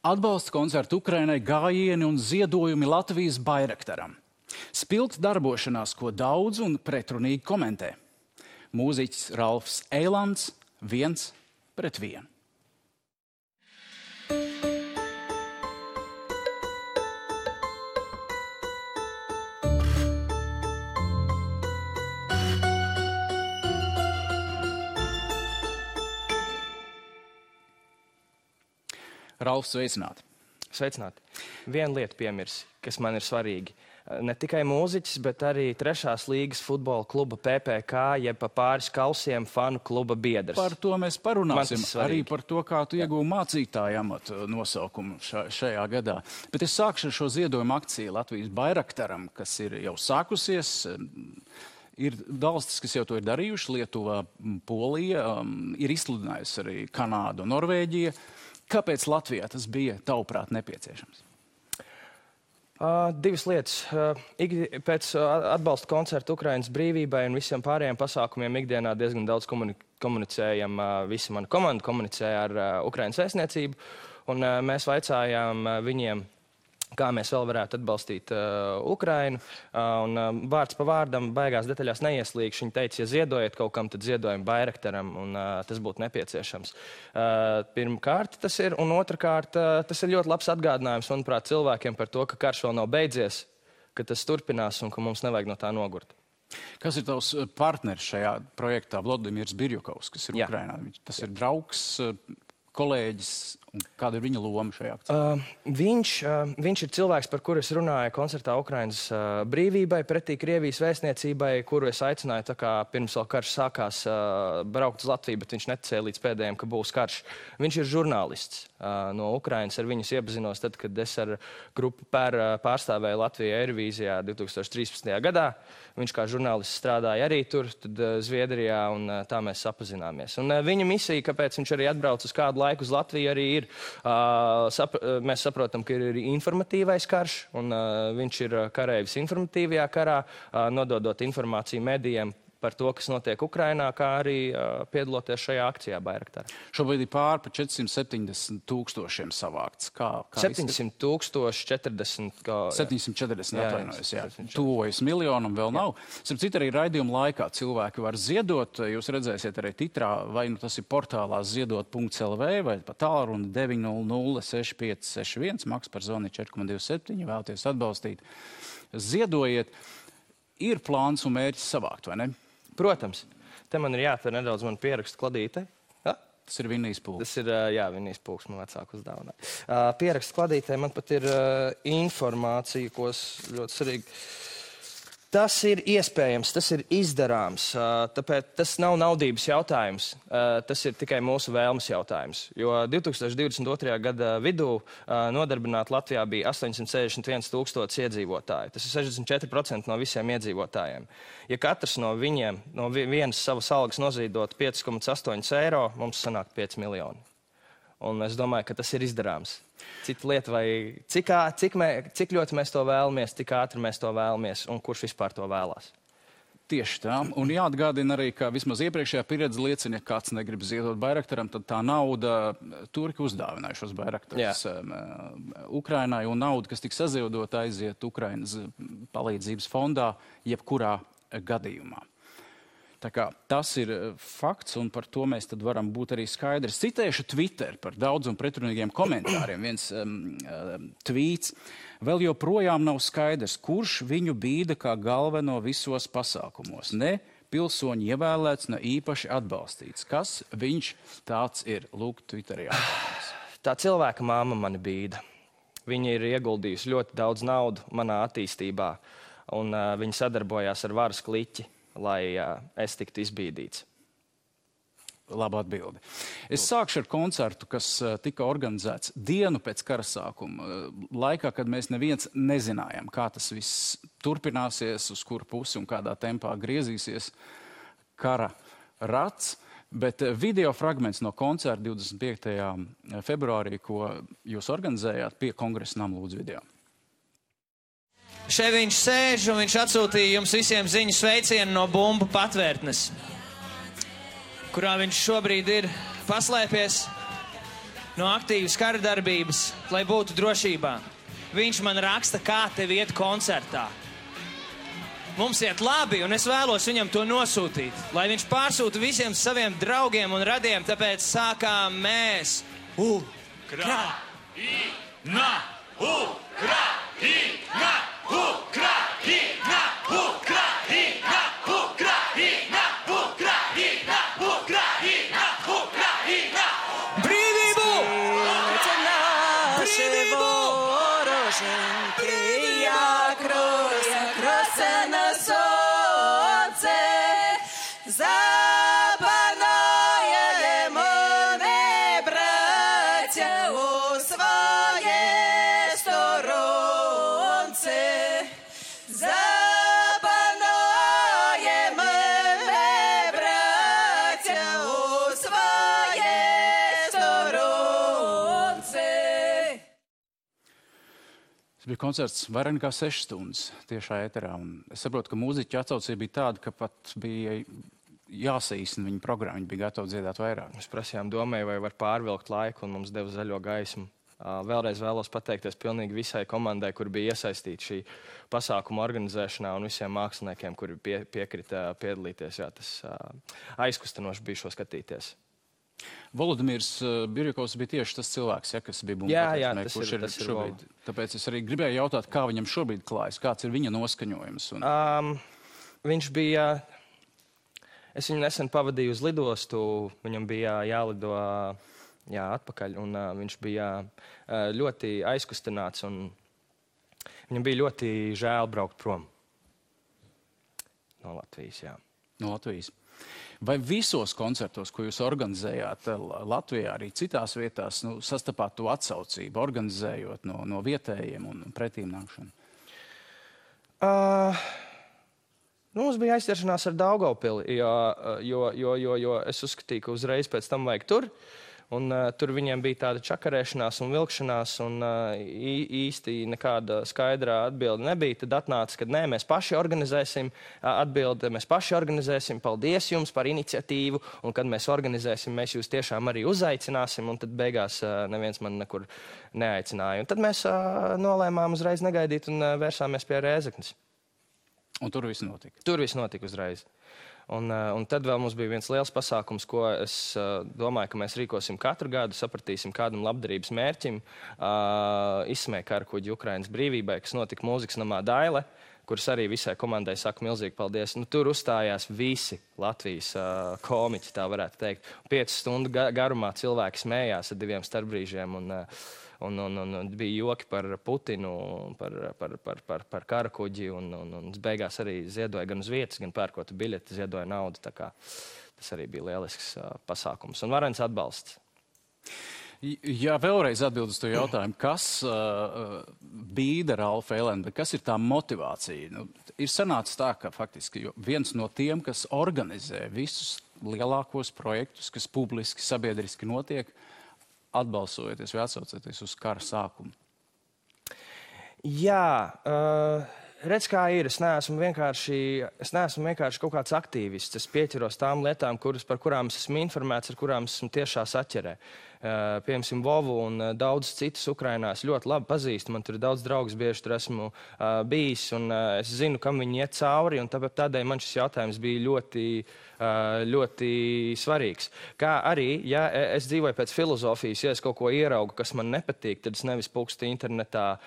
Atbalsta koncertu Ukrainai, gājieni un ziedojumi Latvijas Bairaktaram. Spilgta darbošanās, ko daudz un pretrunīgi komentē. Mūziķis Ralfs Eilands 1-1. Ralfs, sveicināti. Sveicināti. Viena lieta piemirsi, kas man ir svarīgi. Ne tikai mūziķis, bet arī 3. līgas futbola kluba PPK, jeb pa pāris kausiem fanu kluba biedrs. Par to mēs parunāsim. Arī par to, kā tu iegūvi mācītāju amatu nosaukumu šajā gadā. Bet es sākšu ar šo ziedojumu akciju Latvijas Bairaktaram, kas ir jau sākusies. Ir valstis, kas jau to ir darījuši. Lietuva, Polija, ir izsludinājusi arī Kanāda un Norvēģija. Kāpēc Latvijā tas bija, tavuprāt, nepieciešams? Divas lietas. Pēc atbalsta koncertu Ukrainas brīvībai un visiem pārējiem pasākumiem ikdienā diezgan daudz komunicējam. Visa mana komanda komunicēja ar Ukrainas vēstniecību, un mēs vaicājām viņiem, kā mēs vēl varētu atbalstīt Ukrainu. Un vārds pa vārdam baigās detaļās neieslīgšu. Viņi teica, ja ziedojat kaut kam, tad ziedojam Bairaktaram, un tas būtu nepieciešams. Pirmkārt tas ir, un otrkārt tas ir ļoti labs atgādinājums, manuprāt, cilvēkiem par to, ka karš vēl nav beidzies, ka tas turpinās un ka mums nevajag no tā nogurt. Kas ir tavs partneris šajā projektā? Vladimirs Birjukovs, kas ir Ukrainā. Tas ir draugs, kolēģis, un kāda ir viņa loma šajā akcijā? Viņš ir cilvēks, par kuru es runāju koncertā Ukrainas brīvībai, pretī Krievijas vēstniecībai, kuru es aicināju, tā kā pirms vēl karš sākās, braukt uz Latviju, bet viņš neticēja līdz pēdējiem, ka būs karš. Viņš ir žurnālists no Ukrainas, ar viņus iepazinos tad, kad es ar grupu pārstāvēju Latviju Eirovīzijā 2013. gadā. Viņš kā žurnālists strādāja arī tur, tad Zviedrijā, un tā mēs sapazināmies. Un viņa misija, kāpēc viņš arī atbrauc uz kādu laiku uz Latviju, arī ir, mēs saprotam, ka ir informatīvais karš, un viņš ir kareivis informatīvajā karā, nododot informāciju medijiem par to, kas notiek Ukrainā, kā arī piedaloties šajā akcijā Bairaktarā. Šobrīd ir pār pa 470 000 savākts. 700 040. 740, atvainojos, jā. Tuvojas miljonam vēl nav. Starp citu, arī raidījuma laikā cilvēki var ziedot. Jūs redzēsiet arī titrā, vai nu tas ir portālā ziedot.lv, vai pa tālruni 900 6561, maks par zvani 4,27, vēlaties atbalstīt. Ziedojiet. Ir plāns un mērķis savākt, vai ne? Protams. Te man ir jāatver nedaudz man pierakstu kladīte. Ja? Tas ir Vinnijas pulks. Tas ir, jā, Vinnijas pulks man vecāku uzdāvinā. Pierakstu kladītē man pat ir informācija, ko ļoti svarīgi. Tas ir iespējams, tas ir izdarāms, tāpēc tas nav naudības jautājums, tas ir tikai mūsu vēlmes jautājums. Jo 2022. gada vidū nodarbināti Latvijā bija 861 000 iedzīvotāji. Tas ir 64% no visiem iedzīvotājiem. Ja katrs no viņiem, no vienas savas algas nozīdot 5,8 eiro, mums sanāk 5 miljoni. Un es domāju, ka tas ir izdarāms. Cita lieta, vai cik ļoti mēs to vēlamies, cik ātri mēs to vēlamies un kurš vispār to vēlās. Tieši tā. Un jāatgādina arī, ka vismaz iepriekšējā pieredze liecina, ja kāds negrib ziedot Bairaktaram, tad tā nauda turki uzdāvinājušos Bairaktarus Ukrainai, un nauda, kas tiks saziedota, aiziet Ukrainas palīdzības fondā jebkurā gadījumā. Tā kā tas ir fakts, un par to mēs tad varam būt arī skaidri. Citēšu Twitter par daudz un pretrunīgiem komentāriem. Viens tvīts. Vēl joprojām nav skaidrs, kurš viņu bīda kā galveno visos pasākumos. Ne pilsoņi ievēlēts, ne īpaši atbalstīts. Kas viņš tāds ir? Lūk, Twitterī atbalstīs. Tā cilvēka māma mani bīda. Viņa ir ieguldījusi ļoti daudz naudu manā attīstībā, un viņa sadarbojās ar varas kliķi, lai es tiktu izbīdīts. Laba atbildi. Es sākšu ar koncertu, kas tika organizēts dienu pēc kara sākuma, laikā, kad mēs neviens nezinājām, kā tas viss turpināsies, uz kuru pusi un kādā tempā griezīsies kara rats. Bet video fragments no koncerta 25. februārī, ko jūs organizējāt pie Kongresa nama, lūdzu video. Šeit viņš sēž un viņš atsūtīja jums visiem ziņu sveicienu no bumbu patvērtnes, kurā viņš šobrīd ir paslēpies. no aktīvas kara darbības, lai būtu drošībā. Viņš man raksta, kā tev iet koncertā. Mums iet labi, un es vēlos viņam to nosūtīt, lai viņš pārsūta visiem saviem draugiem un radiem, tāpēc sākām mēs. Ukraina! Ukraina! Ukraina! Ukraina! Ukraina! Ukraina! Ukraina! Ukraina! Brīvību! Brīvību! Bija koncerts vairāk nekā 6 stundas tiešā ēterā. Es saprotu, ka mūziķa atsaucība bija tāda, ka pat bija jāsaīsina viņa programma. Viņi bija gatavi dziedāt vairāk. Mēs prasījām domai, vai var pārvilkt laiku, un mums deva zaļo gaismu. Vēlreiz vēlos pateikties pilnīgi visai komandai, kur bija iesaistīta šī pasākuma organizēšanā, un visiem māksliniekiem, kuri piekrita piedalīties. Jā, tas aizkustinoši bija šo skatīties. Volodimirs Birjakovs bija tieši tas cilvēks, ja, kas bija bumbatēs, kurš ir šobrīd. Tāpēc es arī gribēju jautāt, kā viņam šobrīd klājas, kāds ir viņa noskaņojums. Viņš bija, es viņu nesen pavadīju uz lidostu, viņam bija jālido atpakaļ, un viņš bija ļoti aizkustināts, un viņam bija ļoti žēl braukt prom no Latvijas. Jā. No Latvijas. Vai visos koncertos, ko jūs organizējāt Latvijā, arī citās vietās, sastapāt to atsaucību, organizējot no vietējiem un pretīm nākšanu? Mums bija aizķeršanās ar Daugavpili, jo es uzskatīju, ka uzreiz pēc tam vajag tur. Un tur viņiem bija tāda čakarēšanās un vilkšanās, un īsti nekāda skaidrā atbilde nebija. Tad atnāca, ka nē, mēs paši organizēsim atbildi, mēs paši organizēsim, paldies jums par iniciatīvu, un kad mēs organizēsim, mēs jūs tiešām arī uzaicināsim, un tad beigās neviens man nekur neaicināja. Un tad mēs nolēmām uzreiz negaidīt un vērsāmies pie Rēzeknes. Un tur viss notika? Tur viss notika uzreiz. Un tad vēl mums bija viens liels pasākums, ko es domāju, ka mēs rīkosim katru gadu, sapratīsim kādam labdarības mērķim, izsmēja karakuģi Ukrainas brīvībai, kas notika mūzikas namā Daile, kuras arī visai komandai saka milzīgi paldies. Tur uzstājās visi Latvijas komiķi, tā varētu teikt. 5 stundu garumā cilvēki smējās ar 2 starpbrīžiem, un bija joki par Putinu, par karakuģi, un beigās arī ziedoja gan uz vietas, gan pērkot biļeti, ziedoja naudu. Tā kā tas arī bija lielisks pasākums un varens atbalsts. Jā, vēlreiz atbild uz to jautājumu, kas bīda Ralfu Elendu, kas ir tā motivācija? Ir sanācis tā, ka faktiski viens no tiem, kas organizē visus lielākos projektus, kas publiski, sabiedriski notiek, atbalsojoties vai atsaucoties uz kara sākumu? Jā, redz, kā ir. Es neesmu vienkārši kaut kāds aktīvists. Es pieķeros tām lietām, par kurām es esmu informēts, ar kurām esmu tiešā saķerē. Piemēram, Vovu un daudz citus Ukrainā es ļoti labi pazīstu. Man tur ir daudz draugus, bieži tur esmu bijis, un es zinu, kam viņi iet cauri, un tādēļ man šis jautājums bija ļoti svarīgs. Kā arī, ja es dzīvoju pēc filozofijas, ja es kaut ko ieraugu, kas man nepatīk, tad es nevis pukstu internetā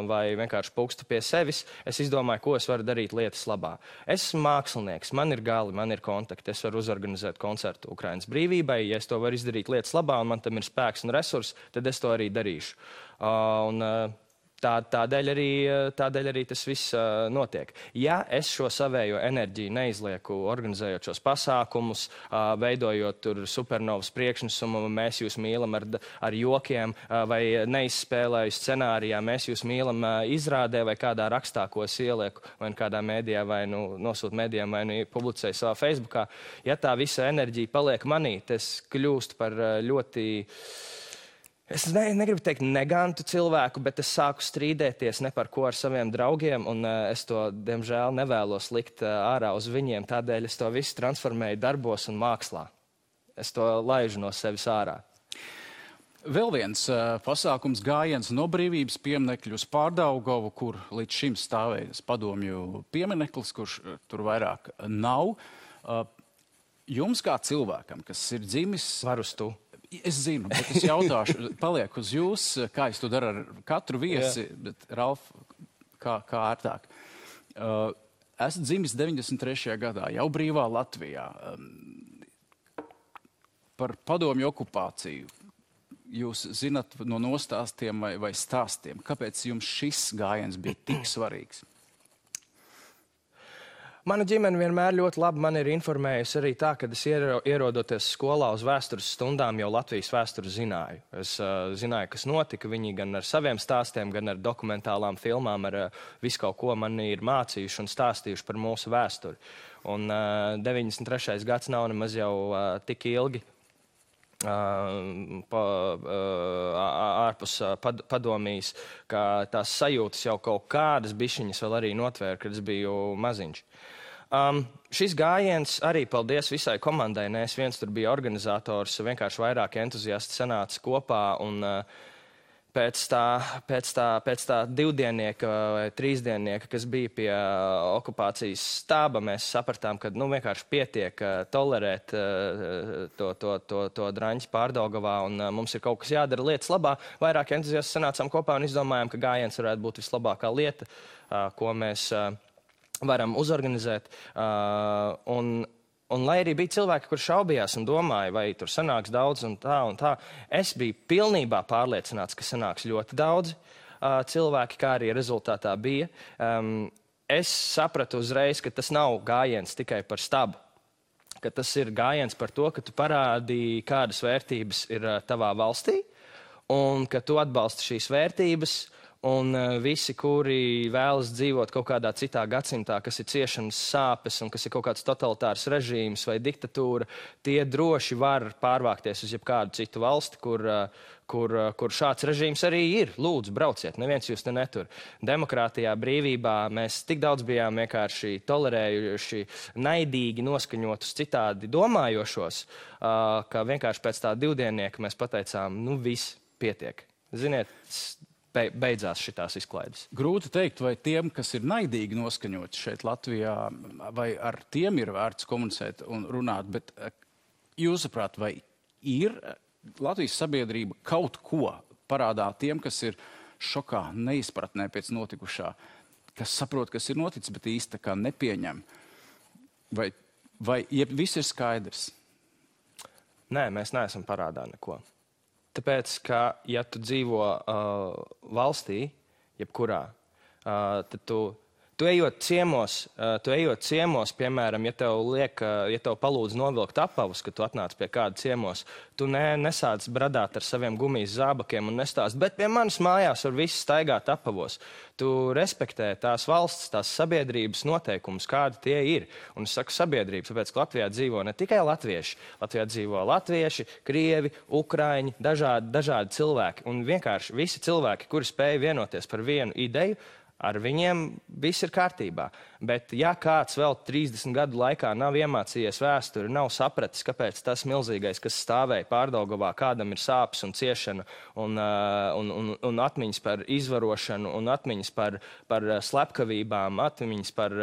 vai vienkārši pukstu pie sevis. Es izdomāju, ko es varu darīt lietas labā. Es esmu mākslinieks, man ir gali, man ir kontakti, es varu uzorganizēt koncertu Ukrainas brīvībai. Ja es to varu izdarīt lietas labā, un man tam ir spēks un resursi, tad es to arī darīšu. Tādēļ arī tas viss notiek. Ja es šo savējo enerģiju neizlieku, organizējot šos pasākumus, veidojot tur supernovas priekšnesumu, mēs jūs mīlam ar jokiem, vai neizspēlēju scenārijā, mēs jūs mīlam izrādē vai kādā rakstā, ko es ielieku, vai kādā mēdījā, vai nosūtu mēdījām, vai publicēju savā Facebookā, ja tā visa enerģija paliek manī, tas kļūst par ļoti... Es negribu teikt negantu cilvēku, bet es sāku strīdēties ne par ko ar saviem draugiem, un es to, diemžēl, nevēlos likt ārā uz viņiem. Tādēļ es to visu transformēju darbos un mākslā. Es to laižu no sevis ārā. Vēl viens pasākums gājiens no Brīvības pieminekļa uz Pārdaugavu, kur līdz šim stāvējas padomju piemineklis, kurš tur vairāk nav. Jums kā cilvēkam, kas ir dzimis... Var uz tu. Es zinu, bet es jautāšu, paliek uz jūs, kā es to daru ar katru viesi, bet Ralf, kā ērtāk. Esat dzimis 93. gadā, jau brīvā Latvijā. Par padomju okupāciju jūs zinat no nostāstiem vai stāstiem. Kāpēc jums šis gājiens bija tik svarīgs? Mana ģimene vienmēr ļoti labi man ir informējusi arī tā, kad es ierodoties skolā uz vēstures stundām jau Latvijas vēsturi zināju. Es zināju, kas notika. Viņi gan ar saviem stāstiem, gan ar dokumentālām filmām, ar visu kaut ko mani ir mācījuši un stāstījuši par mūsu vēsturi. Un 93. gads nav nemaz jau tik ilgi ārpus padomijas, ka tās sajūtas jau kaut kādas bišķiņas vēl arī notvēra, kad es biju maziņš. Šis gājiens arī paldies visai komandai. Ne es viens tur biju organizators, vienkārši vairāk entuziasti sanāca kopā un pēc tā divdiennieka vai trīsdiennieka, kas bija pie okupācijas stāba, mēs sapratām, ka vienkārši pietiek tolerēt to draņķi Pārdaugavā un mums ir kaut kas jādara lietas labā. Vairāk entuziasti sanācām kopā un izdomājām, ka gājiens varētu būt vislabākā lieta, ko mēs varam uzorganizēt. Un lai arī bija cilvēki, kur šaubījās un domāja, vai tur sanāks daudz un tā, es biju pilnībā pārliecināts, ka sanāks ļoti daudz cilvēki, kā arī rezultātā bija. Es sapratu uzreiz, ka tas nav gājiens tikai par stabu, ka tas ir gājiens par to, ka tu parādīji, kādas vērtības ir tavā valstī, un ka tu atbalsti šīs vērtības, un visi, kuri vēlas dzīvot kaut kādā citā gadsimtā, kas ir ciešanas sāpes un kas ir kaut kāds totalitārs režīms vai diktatūra, tie droši var pārvākties uz jebkādu citu valsti, kur šāds režīms arī ir. Lūdzu, brauciet, neviens jūs te netur. Demokrātijā, brīvībā mēs tik daudz bijām vienkārši tolerējuši, naidīgi noskaņotus citādi domājošos, ka vienkārši pēc tā divdiennieka mēs pateicām, viss pietiek. Ziniet, beidzās šitās izklaides. Grūti teikt, vai tiem, kas ir naidīgi noskaņoti šeit Latvijā, vai ar tiem ir vērts komunicēt un runāt, bet jūsuprāt, vai ir Latvijas sabiedrība kaut ko parādā tiem, kas ir šokā, neizpratnē pēc notikušā, kas saprot, kas ir noticis, bet īsti tā kā nepieņem? Vai viss ir skaidrs? Nē, mēs neesam parādā neko. Tāpēc, ka, ja tu dzīvo valstī, jebkurā, tad tu ejot ciemos, piemēram, ja tev palūdz novilkt apavus, kad tu atnāc pie kāda ciemos, tu nesāc bradāt ar saviem gumijas zābakiem un nestāst, bet pie manis mājās var visi staigāt apavos. Tu respektē tās valsts, tās sabiedrības noteikumus, kādi tie ir. Un es saku sabiedrības, tāpēc, ka Latvijā dzīvo ne tikai latvieši. Latvijā dzīvo latvieši, krievi, ukraiņi, dažādi cilvēki. Un vienkārši visi cilvēki, kuri spēja vienoties par vienu ideju, ar viņiem viss ir kārtībā. Bet ja kāds vēl 30 gadu laikā nav iemācījies vēsturi, nav sapratis, kāpēc tas milzīgais, kas stāvēja Pārdaugavā, kādam ir sāpes un ciešana un atmiņas par izvarošanu un atmiņas par slepkavībām, atmiņas par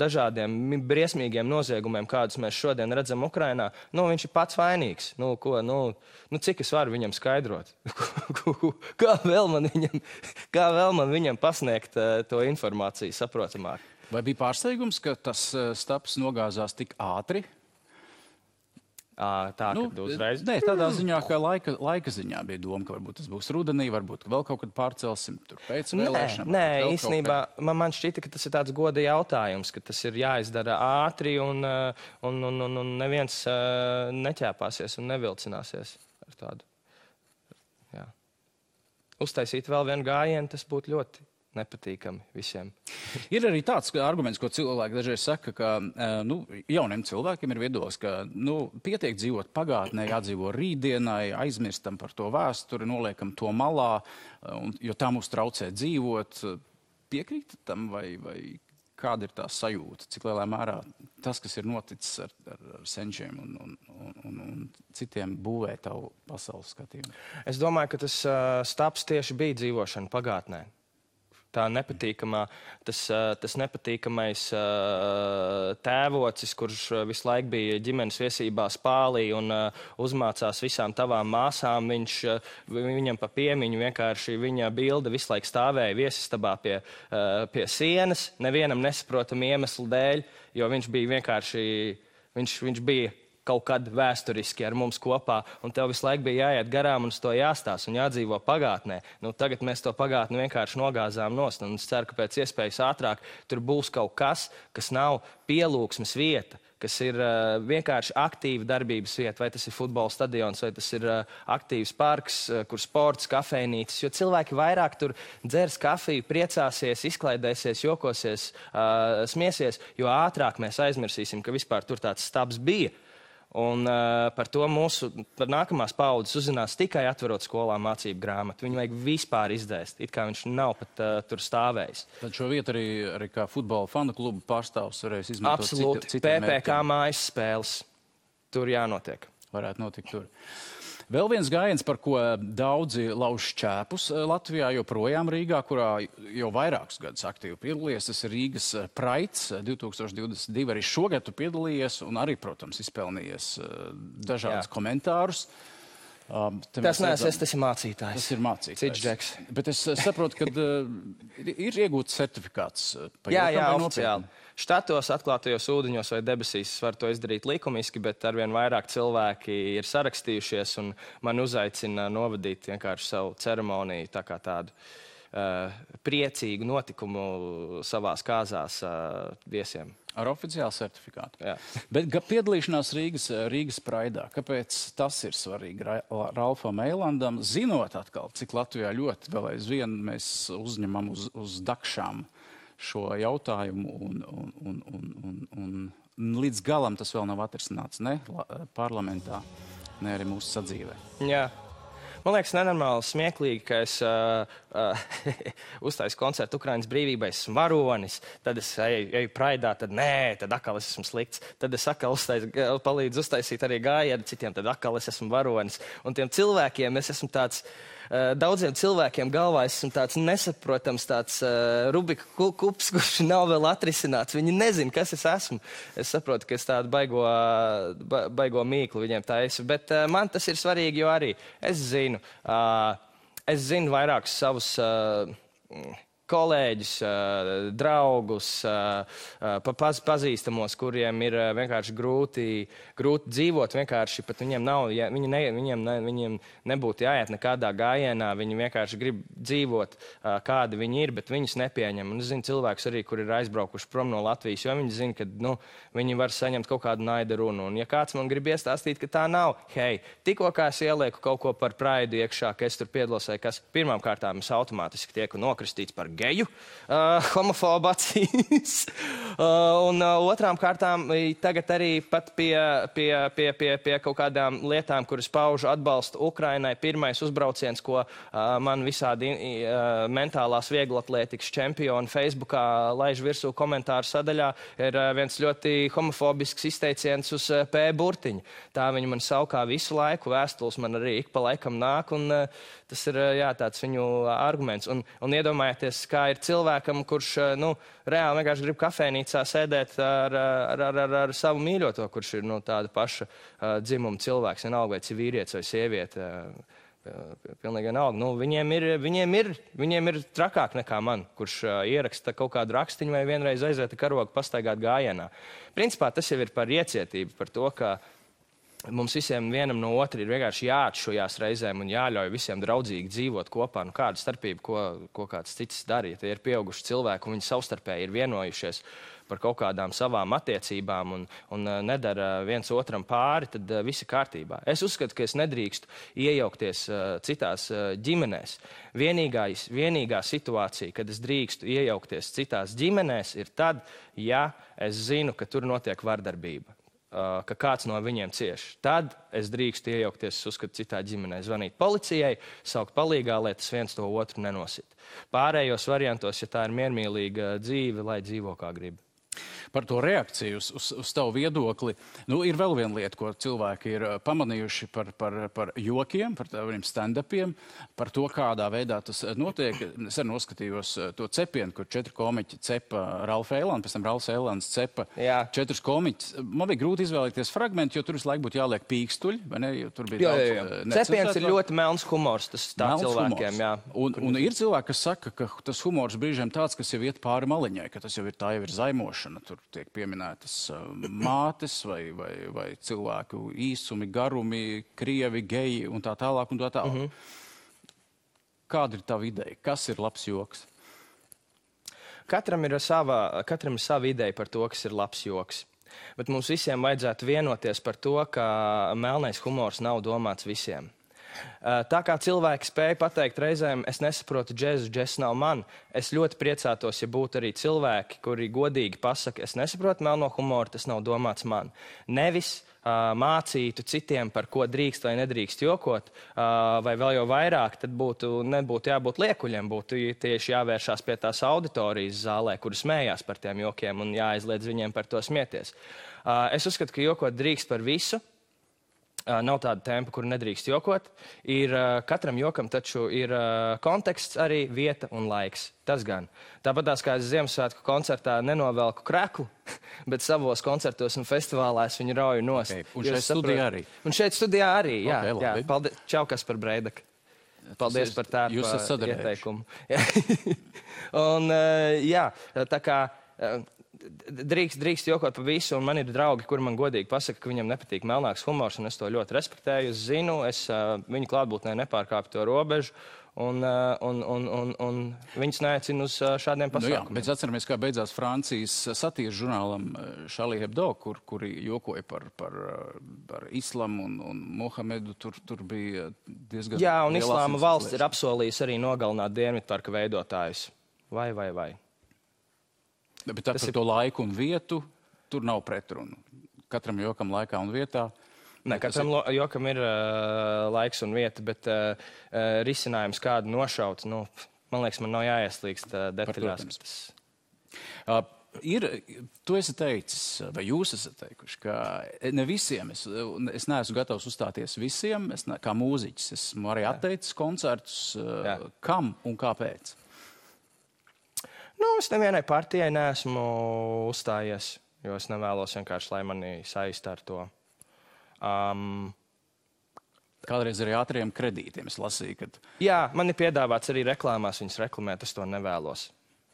dažādiem briesmīgiem noziegumiem, kādus mēs šodien redzam Ukrainā, viņš ir pats vainīgs. Cik es varu viņam skaidrot? Kā vēl man viņam pasniegt to informāciju saprotamāk? Vai bija pārsteigums, ka tas staps nogāzās tik ātri? Kad uzreiz? Nē, tādā ziņā, ka laika ziņā bija doma, ka varbūt tas būs rudenī, varbūt vēl kaut kad pārcelsim tur pēc vēlēšanām. Nē, īstenībā man šķita, ka tas ir tāds goda jautājums, ka tas ir jāizdara ātri un neviens neķēpāsies un nevilcināsies ar tādu. Jā. Uztaisīt vēl vienu gājienu, tas būtu ļoti nepatīkami visiem. Ir arī tāds arguments, ko cilvēki dažreiz saka, ka jauniem cilvēkiem ir viedoklis, ka pietiek dzīvot pagātnē, jādzīvo rītdienai, aizmirstam par to vēsturi, noliekam to malā, jo tā mums traucē dzīvot. Piekrīt tam vai kāda ir tā sajūta, cik lielā mērā tas, kas ir noticis ar senčiem un citiem būvē tavu pasaules skatījumu? Es domāju, ka tas stāps tieši bija dzīvošana pagātnē. Tā nepatīkamā, tas nepatīkamais tēvocis, kurš visu laiku bija ģimenes viesībā Spālī un uzmācās visām tavām māsām, viņam pa piemiņu vienkārši viņa bilde visu laiku stāvēja viesistabā pie sienas, nevienam nesaprotam iemeslu dēļ, jo viņš bija vienkārši, viņš bija kaut kad vēsturiski ar mums kopā, un tev visu laiku bija jāiet garām un uz to jāstāsta un jādzīvo pagātnē. Nu, tagad mēs to pagātni vienkārši nogāzām nost, un es ceru, ka pēc iespējas ātrāk tur būs kaut kas, kas nav pielūgsmes vieta, kas ir vienkārši aktīva darbības vieta, vai tas ir futbola stadions, vai tas ir aktīvs parks, kur sports, kafejnīcas, jo cilvēki vairāk tur dzers kafiju, priecāsies, izklaidēsies, jokosies, smiesies, jo ātrāk mēs aizmirsīsim, ka vispār tur tāds stabs bija. Un par to par nākamās paudzes uzzinās tikai atverot skolā mācību grāmatu. Viņu vajag vispār izdēst, it kā viņš nav pat tur stāvējis. Tad šo vietu arī kā futbola fanu klubu pārstāvs varēs izmantot absolūti. PPK mājas spēles. Tur jānotiek. Varētu notikt tur. Vēl viens gājiens, par ko daudzi lauž šķēpus Latvijā, joprojām Rīgā, kurā jau vairākus gadus aktīvi piedalījies. Tas ir Rīgas Praids 2022. Arī šogad tu piedalījies un arī, protams, izpelnījies dažādus komentārus. Tas ir mācītājs. Tas ir mācītājs. Cits džeks. Bet es saprotu, ka ir iegūts certifikāts. Jā, oficiāli. Štatos, atklātajos ūdeņos vai debesīs var to izdarīt likumiski, bet arvien vairāk cilvēki ir sarakstījušies un man uzaicina novadīt vienkārši savu ceremoniju, tā kā tādu priecīgu notikumu savās kāzās viesiem. Ar oficiālu certifikātu. Jā. Bet piedalīšanās Rīgas Praidā, kāpēc tas ir svarīgi Ralfam Eilandam, zinot atkal, cik Latvijā ļoti vēl aizvien mēs uzņemam uz dakšām šo jautājumu un līdz galam tas vēl nav atrisināts ne parlamentā, ne arī mūsu sadzīvē. Jā. Man liekas nenormāli smieklīgi, ka es uztaisu koncertu Ukrainas brīvībai, esmu varonis, tad es eju Praidā, tad nē, tad atkal es esmu slikts, tad es atkal palīdzu uztaisīt arī gājienu citiem, tad atkal es esmu varonis. Un tiem cilvēkiem es esmu tāds, daudziem cilvēkiem galvā esmu tāds nesaprotams, tāds Rubika kups, kurš nav vēl atrisināts. Viņi nezin, kas es esmu. Es saprotu, ka es tādu baigo mīklu viņiem taisu, bet man tas ir svarīgi, jo arī es zinu vairākus savus kolēģus, draugus, pazīstamos, kuriem ir vienkārši grūti dzīvot, vienkārši pat viņiem nav, viņiem nebūtu jāiet nekādā gājienā, viņi vienkārši grib dzīvot, kādi viņi ir, bet viņus nepieņem. Un es zinu cilvēkus arī, kuri ir aizbraukuši prom no Latvijas, jo viņi zina, ka viņi var saņemt kaut kādu naida runu. Un ja kāds man grib iestāstīt, ka tā nav, hei, tikko kā es ielieku kaut ko par Praidu iekšā, ka es tur piedalos, vai kas pirmām kārtām es automātiski tieku nokristīts par geju, homofobu acīs. Un otrām kārtām tagad arī pat pie kaut kādām lietām, kuras paužu atbalstu Ukrainai. Pirmais uzbrauciens, ko man visādi mentālās vieglatlētikas čempioni Facebookā laiž virsū komentāru sadaļā, ir viens ļoti homofobisks izteiciens uz P. burtiņu. Tā viņi man saukā visu laiku, vēstules man arī ik pa laikam nāk, un tas ir tāds viņu arguments. Un iedomājieties, kā ir cilvēkam, kurš reāli vienkārši grib kafejnīcā sēdēt ar savu mīļoto, kurš ir tāda paša dzimuma cilvēks, vienalga vai tas ir vīrietis vai sieviete. Pilnīgi vienalga. Viņiem ir trakāk nekā man, kurš ieraksta kaut kādu rakstiņu vai vienreiz aiziet karogu pastaigāt gājienā. Principā tas jau ir par iecietību, par to, ka mums visiem vienam no otra ir vienkārši jāatšujās reizēm un jāļauj visiem draudzīgi dzīvot kopā. Kāda starpība, ko kāds cits dara, ja tie ir pieauguši cilvēki un viņi savstarpēji ir vienojušies par kaut kādām savām attiecībām un nedara viens otram pāri, tad viss ir kārtībā. Es uzskatu, ka es nedrīkstu iejaukties citās ģimenēs. Vienīgā situācija, kad es drīkstu iejaukties citās ģimenēs, ir tad, ja es zinu, ka tur notiek vardarbība. ka kāds no viņiem cieš. Tad es drīkstu iejaukties, es uzskatu, citā ģimenē, zvanīt policijai, saukt palīgā, lai tas viens to otru nenosit. Pārējos variantos, ja tā ir miermīlīga dzīve, lai dzīvo kā grib. Par to reakciju uz tavu viedokli. Ir vēl viena lieta, ko cilvēki ir pamanījuši par jokiem, par tādiem stand-upiem, par to, kādā veidā tas notiek. Es arī noskatījos to cepienu, kur 4 komiķi cepa Ralfu Eilandu, pēc tam Ralfs Eilands cepa 4 komiķus. Man bija grūti izvēlēties fragmentu, jo tur visu laiku būtu jāliek pīkstuļi, vai ne? Jo tur bija daudz cepiens ir ļoti melns humors, tas tā cilvēkiem, jā. Un ir cilvēki, kas saka, ka tas humors brīžiem tāds, kas jau iet pāri maliņai, ka tas jau ir zaimošana. Tur tiek pieminētas mātes vai cilvēku īsumi, garumi, krievi, geji un tā tālāk un tā tālāk. Kāda ir tava ideja? Kas ir labs joks? Katram ir sava ideja par to, kas ir labs joks. Bet mums visiem vajadzētu vienoties par to, ka melnais humors nav domāts visiem. Tā kā cilvēki spēja pateikt reizēm, es nesaprotu džezu, džess nav man, es ļoti priecātos, ja būtu arī cilvēki, kuri godīgi pasaka, es nesaprotu melno humoru, tas nav domāts man. Nevis mācītu citiem, par ko drīkst vai nedrīkst jokot, vai vēl jau vairāk, tad nebūtu jābūt liekuļiem, būtu tieši jāvēršās pie tās auditorijas zālē, kuri smējās par tiem jokiem un jāaizliedz viņiem par to smieties. Es uzskatu, ka jokot drīkst par visu. Nav tāda tempa, kur nedrīkst jokot. Katram jokam taču ir konteksts, arī vieta un laiks. Tas gan. Tāpatās kā es Ziemassvētku koncertā nenovelku kreklu, bet savos koncertos un festivālās viņu rauju nost. Okay. Un šeit studijā arī? Un šeit studijā arī, jā. Okay, jā. Paldies, čau, Kaspar Breidak. Paldies par tādu ieteikumu. Un jā, tā kā... Drīkst jokot par visu, un man ir draugi, kuri man godīgi pasaka, ka viņam nepatīk melnāks humors, un es to ļoti respektēju. Es zinu, es viņu klātbūtnē nepārkāpu to robežu, un viņus neaicinu uz šādiem pasākumiem. Bet atceramies, kā beidzās Francijas satīras žurnālam Charlie Hebdo, kuri jokoja par islamu un Mohamedu. Tur bija diezgan... Jā, un islāma valsts ir apsolījusi arī nogalināt Dienvidparka veidotājus. Vai. Bet par to laiku un vietu tur nav pretrunu. Katram jokam laikā un vietā. Ne, katram jokam ir laiks un vieta, bet risinājums kādu nošaut, man liekas, man nav jāieslīgst detaļās. Tu esi teicis, vai jūs esat teikuši, ka ne visiem, es neesmu gatavs uzstāties visiem, kā mūziķis, esmu arī atteicis koncertus, kam un kāpēc? Es nevienai partijai neesmu uzstājies, jo es nevēlos vienkārši, lai mani saista ar to. Kādreiz arī ātriem kredītiem es lasīju, kad... Jā, man ir piedāvāts arī reklāmās viņas reklamēt, es to nevēlos.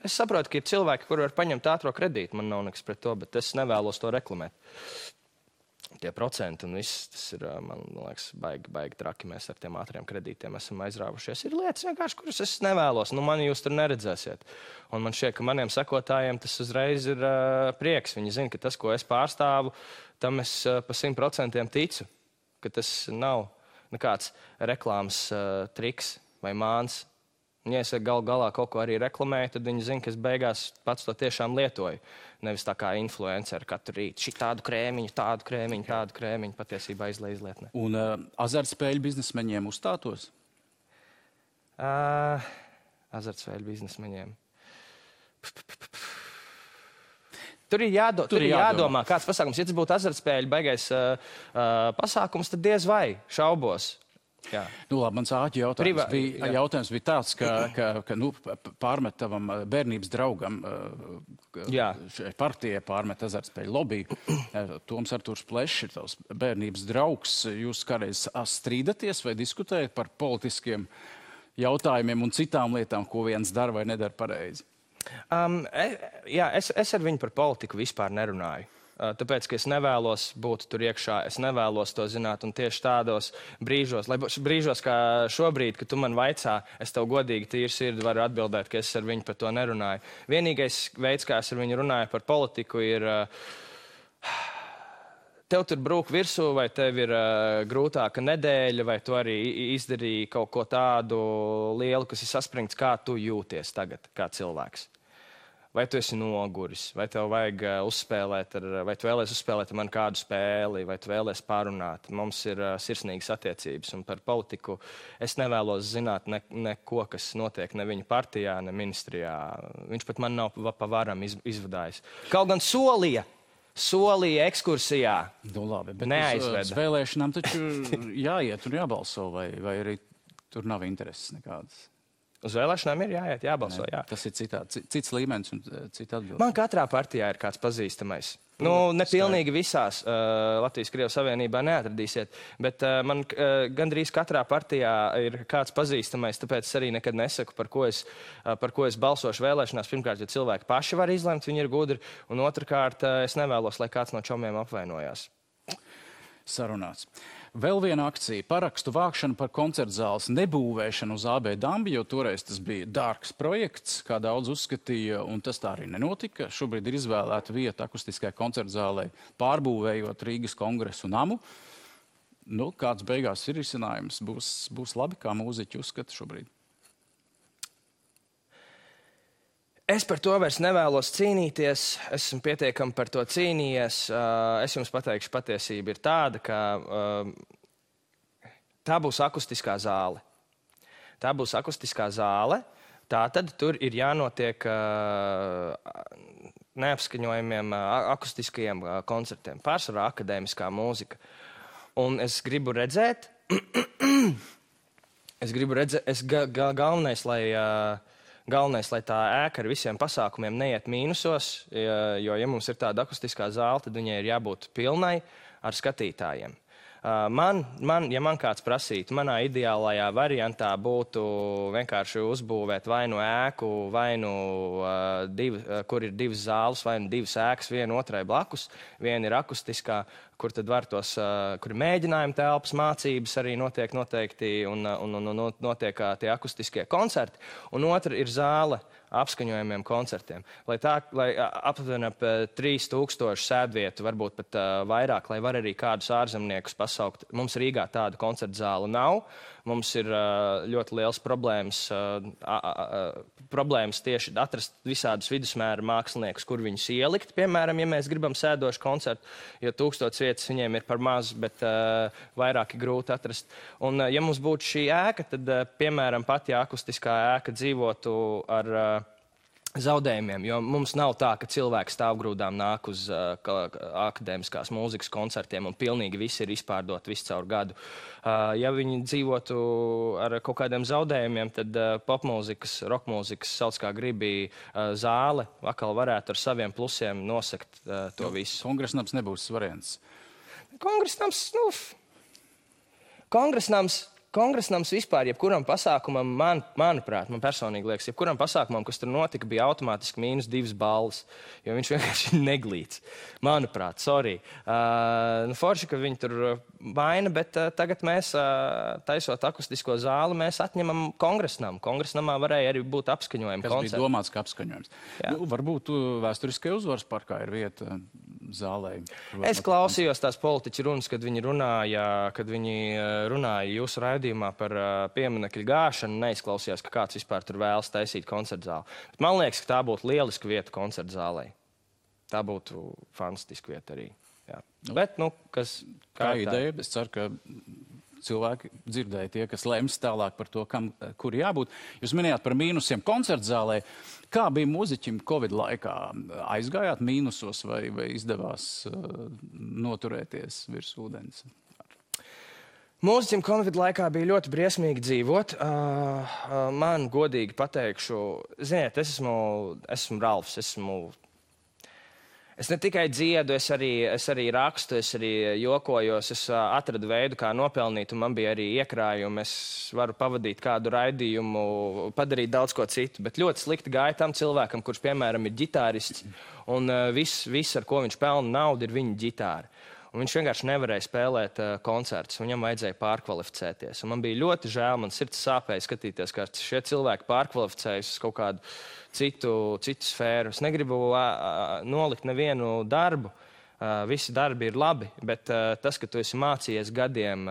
Es saprotu, ka ir cilvēki, kuri var paņemt ātro kredītu, man nav nekas pret to, bet es nevēlos to reklamēt. Tie procenti un viss, tas ir, man liekas, baigi traki. Mēs ar tiem ātriem kredītiem esam aizrāvušies. Ir lietas vienkārši, kuras es nevēlos. Mani jūs tur neredzēsiet. Un man šķiet, ka maniem sekotājiem tas uzreiz ir prieks. Viņi zina, ka tas, ko es pārstāvu, tam es pa 100% ticu. Ka tas nav nekāds reklāmas triks vai māns. Un, ja es galā kaut ko arī reklamēju, tad viņi zina, ka es beigās pats to tiešām lietoju. Nevis tā kā influenceri katru rītu. Šī tādu krēmiņu, tādu krēmiņu patiesībā izlietnē. Un azartspēļu biznesmeņiem uzstātos? Azartspēļu biznesmeņiem. Tur ir jādomā, kāds pasākums. Ja tas būtu azartspēļu baigais pasākums, tad diez vai šaubos. Jā. Labi, mans āķi jautājums bija tāds, ka pārmet tavam bērnības draugam partijai pārmet azartspēļu lobby. Toms Artūrs Plešs ir tavs bērnības draugs. Jūs kādreiz strīdaties vai diskutējat par politiskiem jautājumiem un citām lietām, ko viens dara vai nedara pareizi? Es ar viņu par politiku vispār nerunāju. Tāpēc, ka es nevēlos būt tur iekšā, es nevēlos to zināt, un tieši tādos brīžos, kā šobrīd, kad tu man vaicā, es tev godīgi tīri sirdi varu atbildēt, ka es ar viņu par to nerunāju. Vienīgais veids, kā es ar viņu runāju par politiku, ir tev tur brūk virsū, vai tev ir grūtāka nedēļa, vai tu arī izdarīji kaut ko tādu lielu, kas ir saspringts, kā tu jūties tagad, kā cilvēks. vai tu esi noguris, vai tev vajag uzspēlēt, vai tu vēlies uzspēlēt ar mani kādu spēli, vai tu vēlies pārunāt. Mums ir sirsnīgas attiecības, un par politiku es nevēlos zināt neko, kas notiek ne viņa partijā, ne ministrijā. Viņš pat man nav pa varam izvadājis. Kaut gan solīja ekskursijā. Nu, labi, bet neaizveda. Uz vēlēšanām taču jāiet un jābalso, vai arī tur nav intereses nekādas. Uz vēlēšanām ir jāiet, jābalso, jā. Tas ir cits līmenis un cita atbilde. Man katrā partijā ir kāds pazīstamais. Ne pilnīgi visās Latvijas-Krievijas Savienībā neatradīsiet, bet man gandrīz katrā partijā ir kāds pazīstamais, tāpēc es arī nekad nesaku, par ko es balsošu vēlēšanās. Pirmkārt, jo cilvēki paši var izlemt, viņi ir gudri, un otrkārt, es nevēlos, lai kāds no čomiem apvainojās. Sarunāts. Vēl viena akcija - parakstu vākšana par koncertzāles nebūvēšanu uz AB Dambi, jo toreiz tas bija dārgs projekts, kā daudz uzskatīja, un tas tā arī nenotika. Šobrīd ir izvēlēta vieta akustiskajai koncertzālei, pārbūvējot Rīgas kongresu namu. Nu, kāds beigās ir risinājums? Būs labi, kā mūziķi uzskata šobrīd. Es par to vairs nevēlos cīnīties, esmu pietiekami par to cīnījies. Es jums pateikšu, patiesība ir tāda, ka tā būs akustiskā zāle. Tā būs akustiskā zāle, tātad tur ir jānotiek neapskaņojumiem akustiskajiem koncertiem, pārsvarā akadēmiskā mūzika. Un es gribu redzēt, galvenais, lai tā ēka ar visiem pasākumiem neiet mīnusos, jo, ja mums ir tāda akustiskā zāle, tad viņai ir jābūt pilnai ar skatītājiem. Ja man kāds prasītu, manā ideālajā variantā būtu vienkārši uzbūvēt vai nu ēku, vai nu kur ir divas zāles, vai nu divas ēkas, viena otrai blakus. Viena ir akustiskā, kur tad var kur ir mēģinājuma telpas, mācības arī notiek noteikti un notiek tie akustiskie koncerti. Un otra ir zāle apskaņojumiem koncertiem. Lai aptuveni ap 3000 sēdvietu, varbūt pat vairāk, lai var arī kādus ārzemniekus pasaukt. Mums Rīgā tāda koncerta zāle nav. Mums ir ļoti liels problēmas tieši atrast visādus vidusmēra māksliniekus, kur viņus ielikt. Piemēram, ja mēs gribam sēdošu koncertu, jo 1000 vietas viņiem ir par maz, bet vairāk ir grūti atrast. Un ja mums būtu šī ēka, tad, piemēram, pat ja akustiskā ēka dzīvotu ar zaudējumiem, jo mums nav tā, ka cilvēki stāvgrūdām nāk uz akadēmiskās mūzikas koncertiem un pilnīgi visi ir izpārdoti visu caur gadu. Ja viņi dzīvotu ar kaut kādiem zaudējumiem, tad popmūzikas, rokmūzikas, sauc kā gribi, zāle atkal varētu ar saviem plusiem nosekt to visu. Kongresnams nebūs variants. Kongresnams vispār, jebkuram pasākumam, manuprāt, man personīgi liekas, jebkuram pasākumam, kas tur notika, bija automātiski -2 balvas, jo viņš vienkārši neglīts. Manuprāt, sorry. Forši, ka viņi tur vaina, bet tagad mēs, taisot akustisko zāli, mēs atņemam kongresnam. Kongresnamā varēja arī būt apskaņojumi koncerti. Kas bija domāts kā apskaņojums. Nu, varbūt vēsturiskai uzvaras parkā ir vieta zālē. Es klausījos tās politiķu runas, kad viņi runāja jūsu raidījumā par pieminekļu gāšanu, neizklausījās, ka kāds vispār tur vēlas taisīt koncertzāli. Bet man liekas, ka tā būtu lieliska vieta koncertzālei. Tā būtu fantastiska vieta arī. Jā. Bet, kā ideja, es ceru, ka cilvēki dzirdēja tie, kas lems tālāk par to, kur jābūt. Jūs minējāt par mīnusiem koncertzālē. Kā bija mūziķim Covid laikā? Aizgājāt mīnusos vai izdevās noturēties virs ūdens? Mūziķim Covid laikā bija ļoti briesmīgi dzīvot. Man godīgi pateikšu, ziniet, es esmu Ralfs, Es ne tikai dziedu, es arī rakstu, es arī jokojos, es atradu veidu, kā nopelnīt, un man bija arī iekrājumi. Es varu pavadīt kādu raidījumu, padarīt daudz ko citu, bet ļoti slikti gāja tam cilvēkam, kurš, piemēram, ir ģitārists, un viss, ar ko viņš pelna naudu, ir viņa ģitāra. Un viņš vienkārši nevarēja spēlēt koncertus, viņam vajadzēja pārkvalificēties. Un man bija ļoti žēl, man sirds sāpēja skatīties, kā šie cilvēki pārkvalificējas uz kaut kādu citu sfēru. Es negribu nolikt nevienu darbu, visi darbi ir labi, bet tas, ka tu esi mācījies gadiem,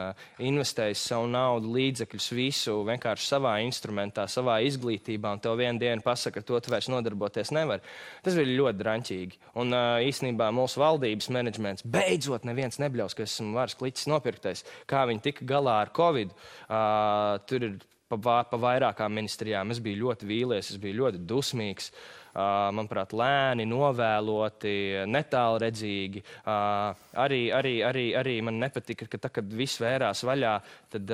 investējis savu naudu, līdzekļus, visu vienkārši savā instrumentā, savā izglītībā, un tev vienu dienu pasaka, ka to tu vairs nodarboties nevar, tas bija ļoti draņķīgi. Un īstenībā mūsu valdības menedžments beidzot neviens nebļaus, ka esmu varas kliķis nopirktais, kā viņi tika galā ar Covid. Tur ir pa vairākām ministrijām. Es biju ļoti vīlies, es biju ļoti dusmīgs. Manuprāt, lēni, novēloti, netālredzīgi. Arī man nepatika, ka tā, kad viss vērās vaļā, tad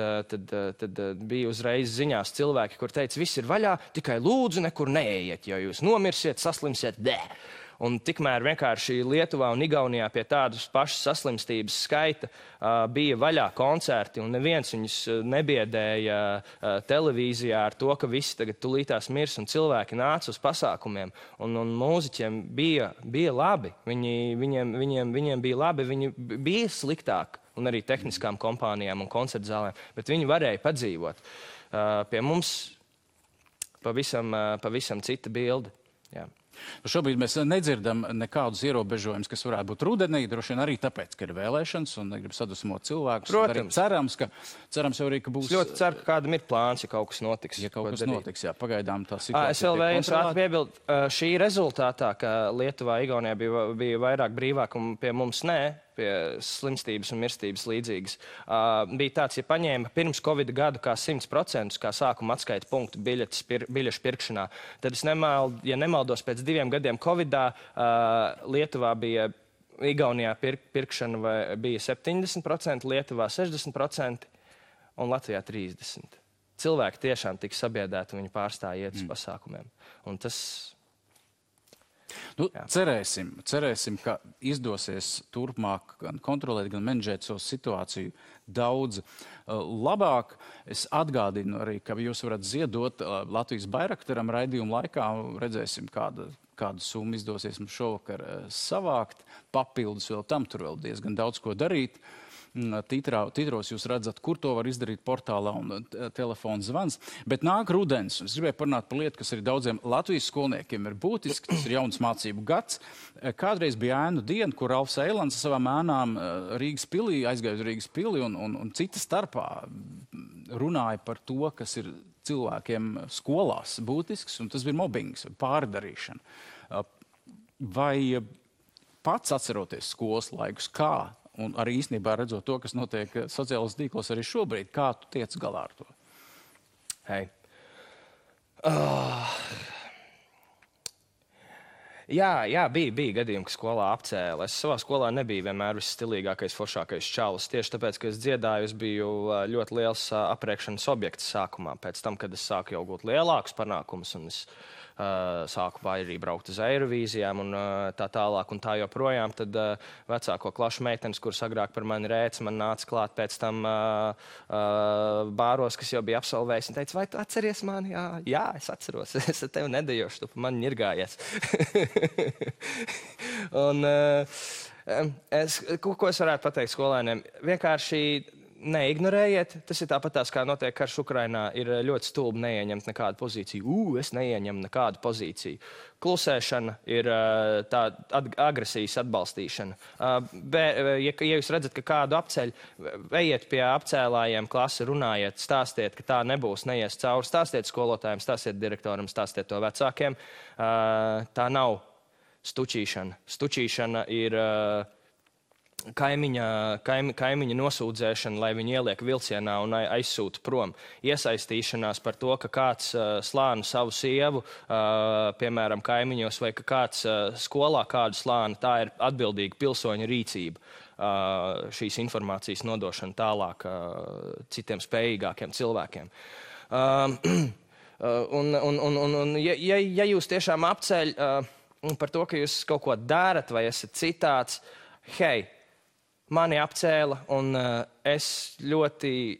bija uzreiz ziņās cilvēki, kur teica, viss ir vaļā, tikai lūdzu nekur neejiet, jo jūs nomirsiet, saslimsiet, Un tikmēr vienkārši Lietuvā un Igaunijā pie tādas pašas saslimstības skaita bija vaļā koncerti, un neviens viņus nebiedēja televīzijā ar to, ka visi tagad tulītās mirs, un cilvēki nāca uz pasākumiem, un mūziķiem bija labi. Viņiem bija labi, viņi bija sliktāk, un arī tehniskām kompānijām un koncertzālēm, bet viņi varēja padzīvot. Pie mums pavisam cita bilde. Jā. Šobrīd mēs nedzirdam nekādus ierobežojumus, kas varētu būt rudenī, droši vien arī tāpēc, ka ir vēlēšanas un negrib sadusmot cilvēkus. Protams. Cerams jau arī, ka būs... Es ļoti ceru, ka kādam ir plāns, ja kaut kas notiks. Ja kaut kas notiks, jā, pagaidām tā situācija. Es vēl vēju ātri piebildu, šī rezultātā, ka Lietuvā, Igaunijā bija vairāk brīvāk un pie mums pie slimstības un mirstības līdzīgas. Bija tāds, ja paņēma pirms Covid gadu kā 100%, kā sākuma atskaita punktu biļešu pirkšanā, tad es nemaldos pēc 2 gadiem Covidā Lietuvā bija, Igaunijā pirkšana bija 70%, Lietuvā 60% un Latvijā 30%. Cilvēki tiešām tika sabiedēti un viņi pārstāja iet uz pasākumiem. Un tas... Cerēsim, ka izdosies turpmāk gan kontrolēt, gan menedžēt savu situāciju daudz labāk. Es atgādinu arī, ka jūs varat ziedot Latvijas Bairaktaram raidījuma laikā. Redzēsim, kādu summu izdosies mums šovakar savākt. Papildus vēl tam, tur vēl diezgan daudz ko darīt. Titros jūs redzat, kur to var izdarīt portālā un telefona zvans. Bet nāk rudens. Es gribēju parunāt par lietu, kas arī daudziem Latvijas skolniekiem ir būtiski. Tas ir jauns mācību gads. Kādreiz bija ēnu diena, kur Ralfs Eilants savām ēnām Rīgas pilī, aizgāja uz Rīgas pili un cita starpā runāja par to, kas ir cilvēkiem skolās būtisks, un tas bija mobbings, pārdarīšana. Vai pats atceroties skolas laikus, kā? Un arī īstenībā redzot to, kas notiek sociālos tīklos arī šobrīd, kā tu tiec galā ar to? Hei. Jā, bija gadījumi, ka skolā apcēla. Es savā skolā nebiju vienmēr visstilīgākais, foršākais čalis. Tieši tāpēc, ka es dziedāju, es biju ļoti liels apriekšanas objekts sākumā. Pēc tam, kad es sāku jau gūt lielākus panākumus, un es sāku arī braukt uz Eirovīzijām un tā tālāk un tā joprojām, tad vecāko klašu meitenes, kuras agrāk par mani rēca, man nāca klāt pēc tam bāros, kas jau bija absolvējis, un teica, vai tu atceries mani? Jā, es atceros, es ar tevi nedejošu, tu pa mani ņirgājies. Un ko es varētu pateikt skolēniem? Vienkārši neignorējiet. Tas ir tāpatās, kā notiek karš Ukrainā, ir ļoti stulbi neieņemt nekādu pozīciju. Es neieņemu nekādu pozīciju. Klusēšana ir tā agresijas atbalstīšana. Ja jūs redzat, ka kādu apceļ, ejiet pie apcēlājiem klasi, runājiet, stāstiet, ka tā nebūs, neies cauri, stāstiet skolotājiem, stāstiet direktoram, stāstiet to vecākiem. Tā nav stučīšana. Stučīšana ir kaimiņa nosūdzēšana, lai viņi ieliek vilcienā un aizsūta prom. Iesaistīšanās par to, ka kāds slāna savu sievu, piemēram, kaimiņos, vai ka kāds skolā kādu slāna, tā ir atbildīga pilsoņa rīcība. Šīs informācijas nodošana tālāk citiem spējīgākiem cilvēkiem. Ja jūs tiešām apceļ par to, ka jūs kaut ko darat vai esat citāds, hei, mani apcēla, un es ļoti,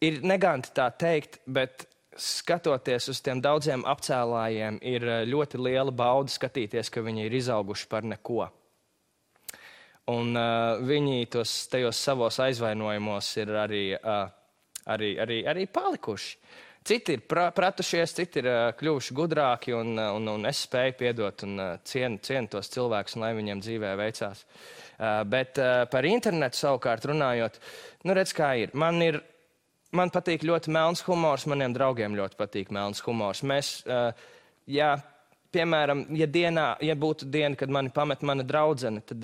ir neganti tā teikt, bet skatoties uz tiem daudziem apcēlājiem, ir ļoti liela bauda skatīties, ka viņi ir izauguši par neko. Un viņi tajos savos aizvainojumos ir arī palikuši. Citi ir pratušies, citi ir kļuvuši gudrāki, un es spēju piedot un cienu tos cilvēkus, un lai viņiem dzīvē veicās. Bet par internetu savukārt runājot, redz, kā ir. Man patīk ļoti melns humors, maniem draugiem ļoti patīk melns humors. Mēs, piemēram, ja būtu diena, kad mani pamet mana draudzene, tad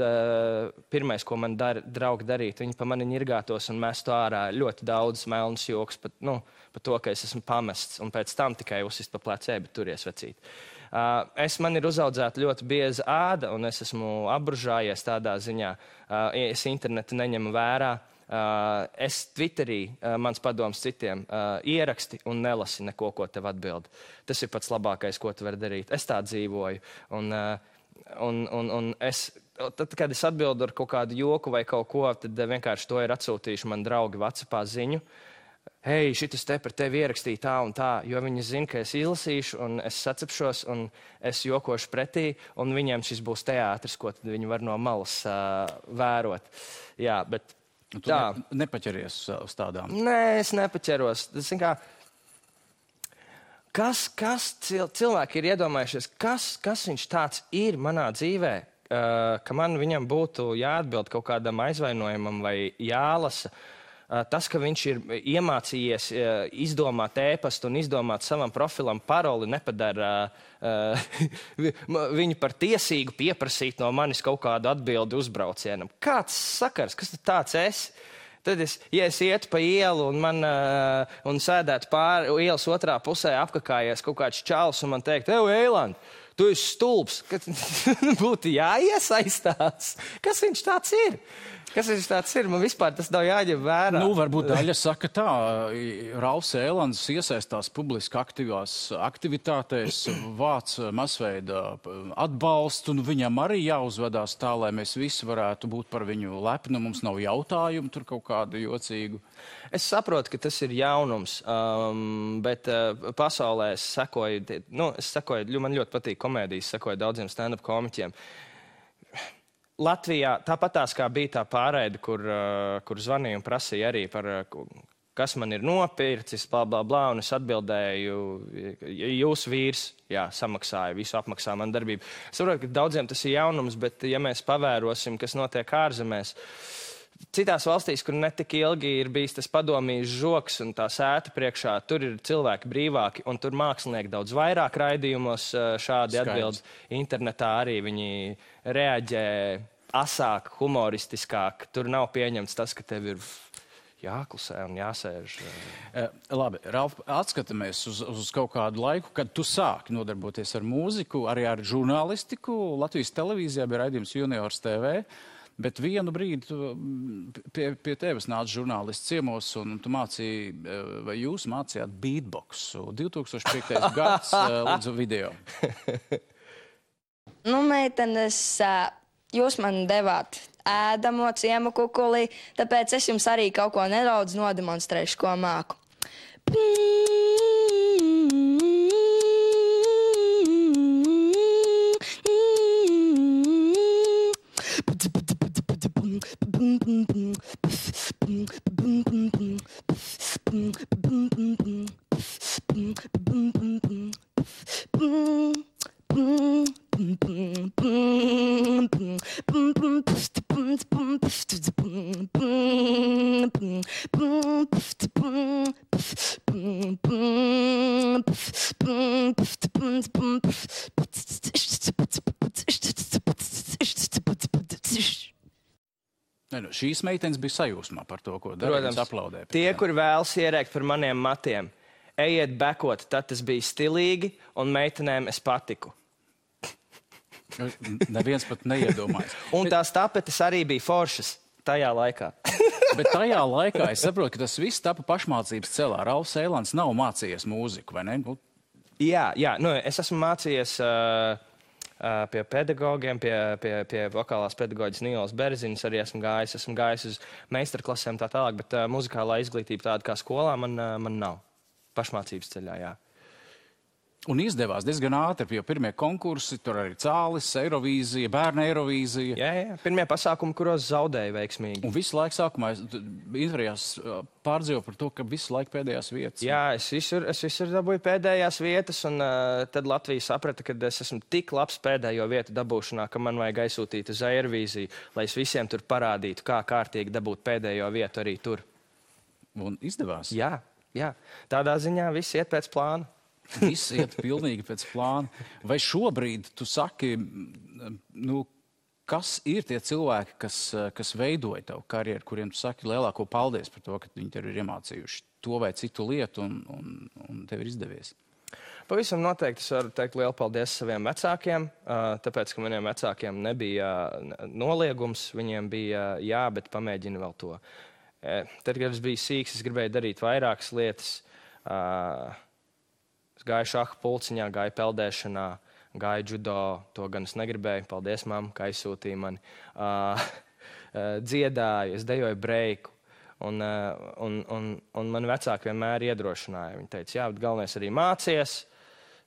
pirmais, ko man draugi darītu, viņi pa mani ņirgātos un mestu ārā ļoti daudz melnas joks par to, ka es esmu pamests, un pēc tam tikai uzsist pa plecē, bet turies vecīt. Man ir uzaudzēta ļoti bieza āda, un es esmu apbružājies tādā ziņā. Es internetu neņemu vērā. Es Twitterī, mans padoms citiem, ieraksti un nelasi neko, ko tev atbild. Tas ir pats labākais, ko tu vari darīt. Es tā dzīvoju. Un tad, kad es atbildu ar kaut kādu joku vai kaut ko, tad vienkārši to ir atsūtījuši man draugi WhatsAppā ziņu. Hei, šitas te par tevi ierakstīja tā un tā, jo viņi zina, ka es izlasīšu un es sacepšos un es jokošu pretī, un viņiem šis būs teātris, ko tad viņi var no malas vērot. Jā, bet tu nepaķeries uz tādām? Nē, es nepaķeros. Kas cilvēki ir iedomājušies, kas viņš tāds ir manā dzīvē, ka man viņam būtu jāatbild kaut kādam aizvainojumam vai jālasa. Tas, ka viņš ir iemācījies izdomāt ēpastu un izdomāt savam profilam paroli, nepadara viņu par tiesīgu pieprasīt no manis kaut kādu atbildi uzbraucienam. Kāds sakars? Kas tu tāds esi? Tad ja es ietu pa ielu un sēdētu pāri ielas otrā pusē apkakājies kaut kāds čalis un man teikt, Eiland, tu esi stulbs, ka būtu jāiesaistās. Kas viņš tāds ir? Man vispār tas nav jāņem vērā. Varbūt daļa saka tā, Ralfs Eilands iesaistās publiski aktīvās aktivitātēs, vāc masveida atbalstu, un viņam arī jāuzvedās tā, lai mēs visi varētu būt par viņu lepni, mums nav jautājumu tur kaut kādu jocīgu. Es saprotu, ka tas ir jaunums, bet pasaulē es sekoju, man ļoti patīk komēdijas, sekoju daudziem stand-up komiķiem. Latvijā tāpatās kā bija tā pārraide, kur zvanīja un prasīja arī par, kas man ir nopircis, blā, blā, blā, un es atbildēju, jūs vīrs, samaksāja, visu apmaksā man darbību. Es saprotu, ka daudziem tas ir jaunums, bet ja mēs pavērosim, kas notiek ārzemēs, citās valstīs, kur netik ilgi ir bijis tas padomijas žoks un tā sēta priekšā, tur ir cilvēki brīvāki, un tur mākslinieki daudz vairāk raidījumos šādi atbild. Internetā arī viņi reaģē asāk, humoristiskāk. Tur nav pieņemts tas, ka tev ir jāklusē un jāsēž. Labi, Ralf, atskatāmies uz kaut kādu laiku, kad tu sāki nodarboties ar mūziku, arī ar žurnālistiku. Latvijas televīzijā bija raidījums Juniors TV. Bet vienu brīdi pie tevis nāca žurnālists ciemos, un tu mācīji, vai jūs mācījāt beatboxu. 2005. gads, lūdzu, video. Meitenes, jūs man devāt ēdamo ciemu kukulī, tāpēc es jums arī kaut ko nedaudz nodemonstrēšu, ko māku. Šīs meitenes bija sajūsmā par to, ko darījums aplaudē. Tie, kuri vēlas ierēkt par maniem matiem, ejiet bekot, tad tas bija stilīgi, un meitenēm es patiku. Neviens pat neiedomājas. Un tās tapetes arī bija foršas tajā laikā. Bet tajā laikā es saprotu, ka tas viss tapa pašmācības celā. Ralfs Eilands nav mācījies mūziku, vai ne? Jā, es esmu mācījies pie pedagogiem, pie vokālās pedagoģis Nīlas Berziņas arī esmu gājis uz meistarklasēm tā tālāk, bet muzikālā izglītība tāda kā skolā man nav. Pašmācības ceļā, jā. Un izdevās diezgan ātri, jo pirmie konkursi, tur arī Cālis, Eirovīzija, bērna Eirovīzija. Jā, pirmie pasākumi, kuros zaudēja veiksmīgi. Un visu laiku sākumā intervijās pārdzīvo par to, ka visu laiku pēdējās vietas. Jā, es visur dabūju pēdējās vietas, un tad Latvija saprata, ka es esmu tik labs pēdējo vietu dabūšanā, ka man vajag aizsūtīt uz Eirovīziju, lai es visiem tur parādītu, kā kārtīgi dabūt pēdējo vietu arī tur. Un izdevās? Jā. Tādā ziņā viss iet pēc plāna. Viss iet pilnīgi pēc plāna. Vai šobrīd tu saki, kas ir tie cilvēki, kas veidoja tavu karjeru, kuriem tu saki lielāko paldies par to, ka viņi tev ir iemācījuši to vai citu lietu un tev ir izdevies? Pavisam noteikti es varu teikt lielu paldies saviem vecākiem, tāpēc, ka maniem vecākiem nebija noliegums, viņiem bija jā, bet pamēģini vēl to. Tad, kad es biju sīks, es gribēju darīt vairākas lietas. Es gāju šaha pulciņā, gāju peldēšanā, gāju judo, to gan es negribēju. Paldies, mamma, ka aizsūtīja mani. Dziedāju, es dejoju breiku. Un mani vecāki vienmēr iedrošināja. Viņi teica, jā, bet galvenais arī mācies.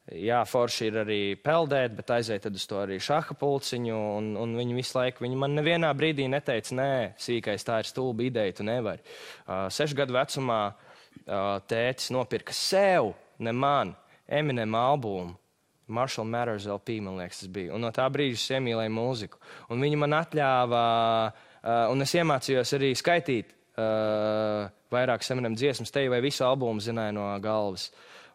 Jā, forši ir arī peldēt, bet aiziet tad uz to arī šaha pulciņu. Un viņi visu laiku, viņi man nevienā brīdī neteica, nē, sīkais, tā ir stulba ideja, tu nevari. 6 gadu vecumā tētis nopirka sev, ne man, Eminem albumu. Marshall Mathers LP, man liekas, tas bija. Un no tā brīža es iemīlēju mūziku. Un viņi man atļāva, un es iemācījos arī skaitīt vairākas Eminem dziesmas, te vai visu albumu zināju no galvas.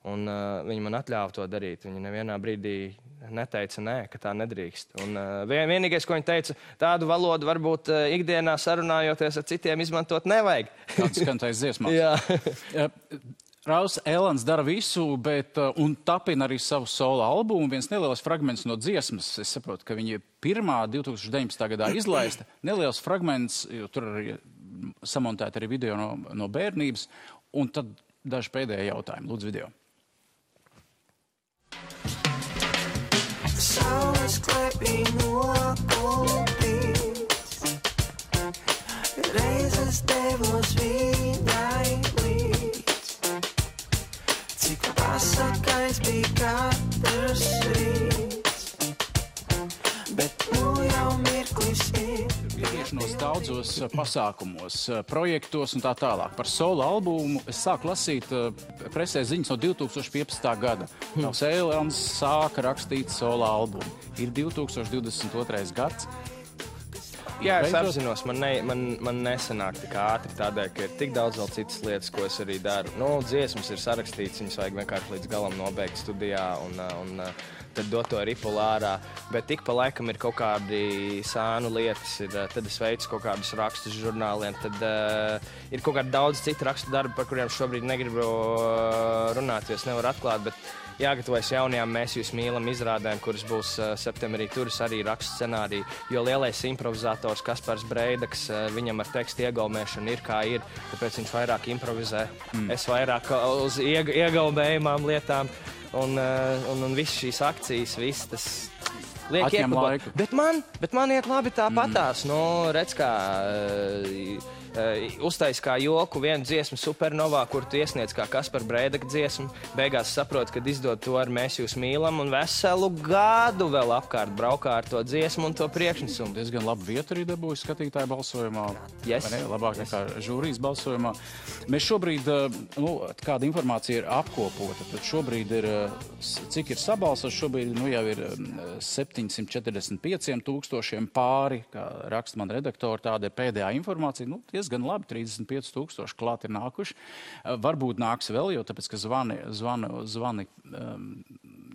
Un viņi man atļāva to darīt. Viņi nevienā brīdī neteica nē, ka tā nedrīkst. Un vienīgais, ko viņi teica, tādu valodu varbūt ikdienā sarunājoties ar citiem izmantot nevajag. Kāds skantais dziesmās. Jā. Rauls Elans dara visu, un tapina arī savu solo albumu. Viens neliels fragments no dziesmas. Es saprotu, ka viņa pirmā 2019. gadā izlaista. Neliels fragments, jo tur arī samontēta arī video no bērnības. Un tad daži pēdējie jautājumi. Lūdzu, video. Saules klēpī nokopīts, reizes devos viņai līdz, cik pasakais bija katrs rīts, bet nu jau mirklis ir. Ietiešanos daudzos pasākumos, projektos un tā tālāk. Par solo albumu es sāku lasīt presē ziņas no 2015. gada. Rauls Elans sāka rakstīt solo albumu. Ir 2022. gads. Jā, es apzinos, man nesanāk tik ātri tādēļ, ka ir tik daudz vēl citas lietas, ko es arī daru. Dziesmas ir sarakstīts, viņas vajag vienkārši līdz galam nobeigt studijā un tad dot to ripulu ārā. Bet tik pa laikam ir kaut kādi sānu lietas, tad es veicu kaut kādus rakstus žurnāliem, tad ir kaut kādi daudz citu rakstu darbi, par kuriem šobrīd negribu runāt, jo es nevaru atklāt, bet jāgatavojas jaunajām Mēs jūs mīlam izrādēm, kuras būs septembrī. Tur es arī rakstu scenāriju, jo lielais improvizators Kaspars Breidaks, viņam ar tekstu iegaumēšanu ir kā ir, tāpēc viņš vairāk improvizē. Es vairāk uz iegaumējumām lietām. Un viss šīs akcijas, viss tas liek iekļūt. Bet man iet labi tāpatās. Redz, kā uztais kā joku vienu dziesmu Supernovā, kur tu iesniedz kā Kaspar Breidaka dziesmu. Beigās saprot, kad izdod to ar Mēs jūs mīlam un veselu gadu vēl apkārt braukā ar to dziesmu un to priekšnesumu. Diezgan labu vietu arī dabūju skatītāju balsojumā. Yes. Labāk nekā žūrijas balsojumā. Mēs šobrīd, kāda informācija ir apkopota, tad šobrīd ir, cik ir sabalsots, šobrīd jau ir 745 000 pāri, kā raksta man redaktori, tāda ir pēdējā informācija. Diezgan labi, 35 000 klāt ir nākuši. Varbūt nāks vēl, jo tāpēc, ka zvani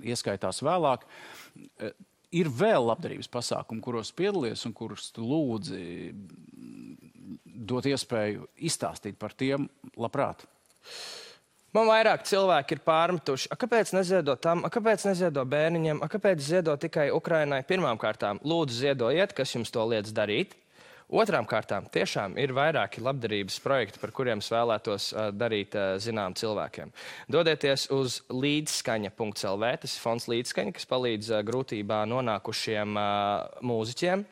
ieskaitās vēlāk. Ir vēl labdarības pasākumi, kuros piedalies un kurus tu lūdzi dot iespēju izstāstīt par tiem labprāt. Man vairāk cilvēki ir pārmetuši. Kāpēc neziedo tam? Kāpēc neziedo bērniņiem? Kāpēc ziedo tikai Ukrainai? Pirmām kārtām, lūdzu ziedojiet, kas jums to liedz darīt. Otrām kārtām tiešām ir vairāki labdarības projekti, par kuriem es vēlētos darīt zinām cilvēkiem. Dodieties uz līdzskaņa.lv, tas ir fonds Līdzskaņa, kas palīdz grūtībā nonākušiem mūziķiem.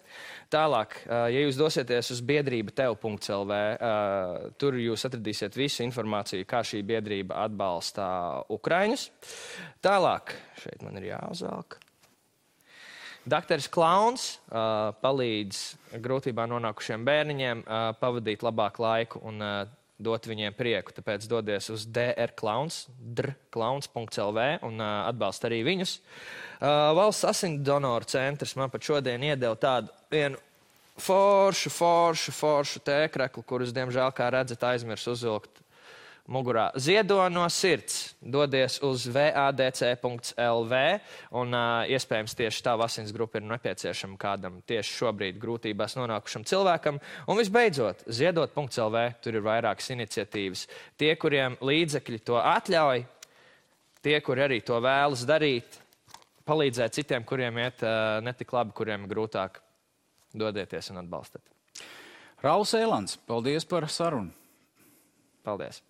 Tālāk, ja jūs dosieties uz biedrība tev.lv, tur jūs atradīsiet visu informāciju, kā šī biedrība atbalsta Ukraiņus. Tālāk, šeit man ir jāuzvelk. Dakteris Klauns palīdz grūtībā nonākušiem bērniņiem pavadīt labāku laiku un dot viņiem prieku. Tāpēc dodies uz drklauns.lv un atbalst arī viņus. Valsts asins donoru centrs man pat šodien iedeva tādu vienu foršu tēkreklu, kurus, diemžēl, kā redzat, aizmirs uzvilkt mugurā. Ziedo no sirds. Dodies uz vadc.lv un iespējams tieši tā asins grupa ir nepieciešama kādam tieši šobrīd grūtībās nonākušam cilvēkam. Un visbeidzot, ziedot.lv, tur ir vairākas iniciatīvas. Tie, kuriem līdzekļi to atļauj, tie, kuri arī to vēlas darīt, palīdzēt citiem, kuriem iet netik labi, kuriem ir grūtāk, dodieties un atbalstat. Rauls Ēlans, paldies par sarunu. Paldies.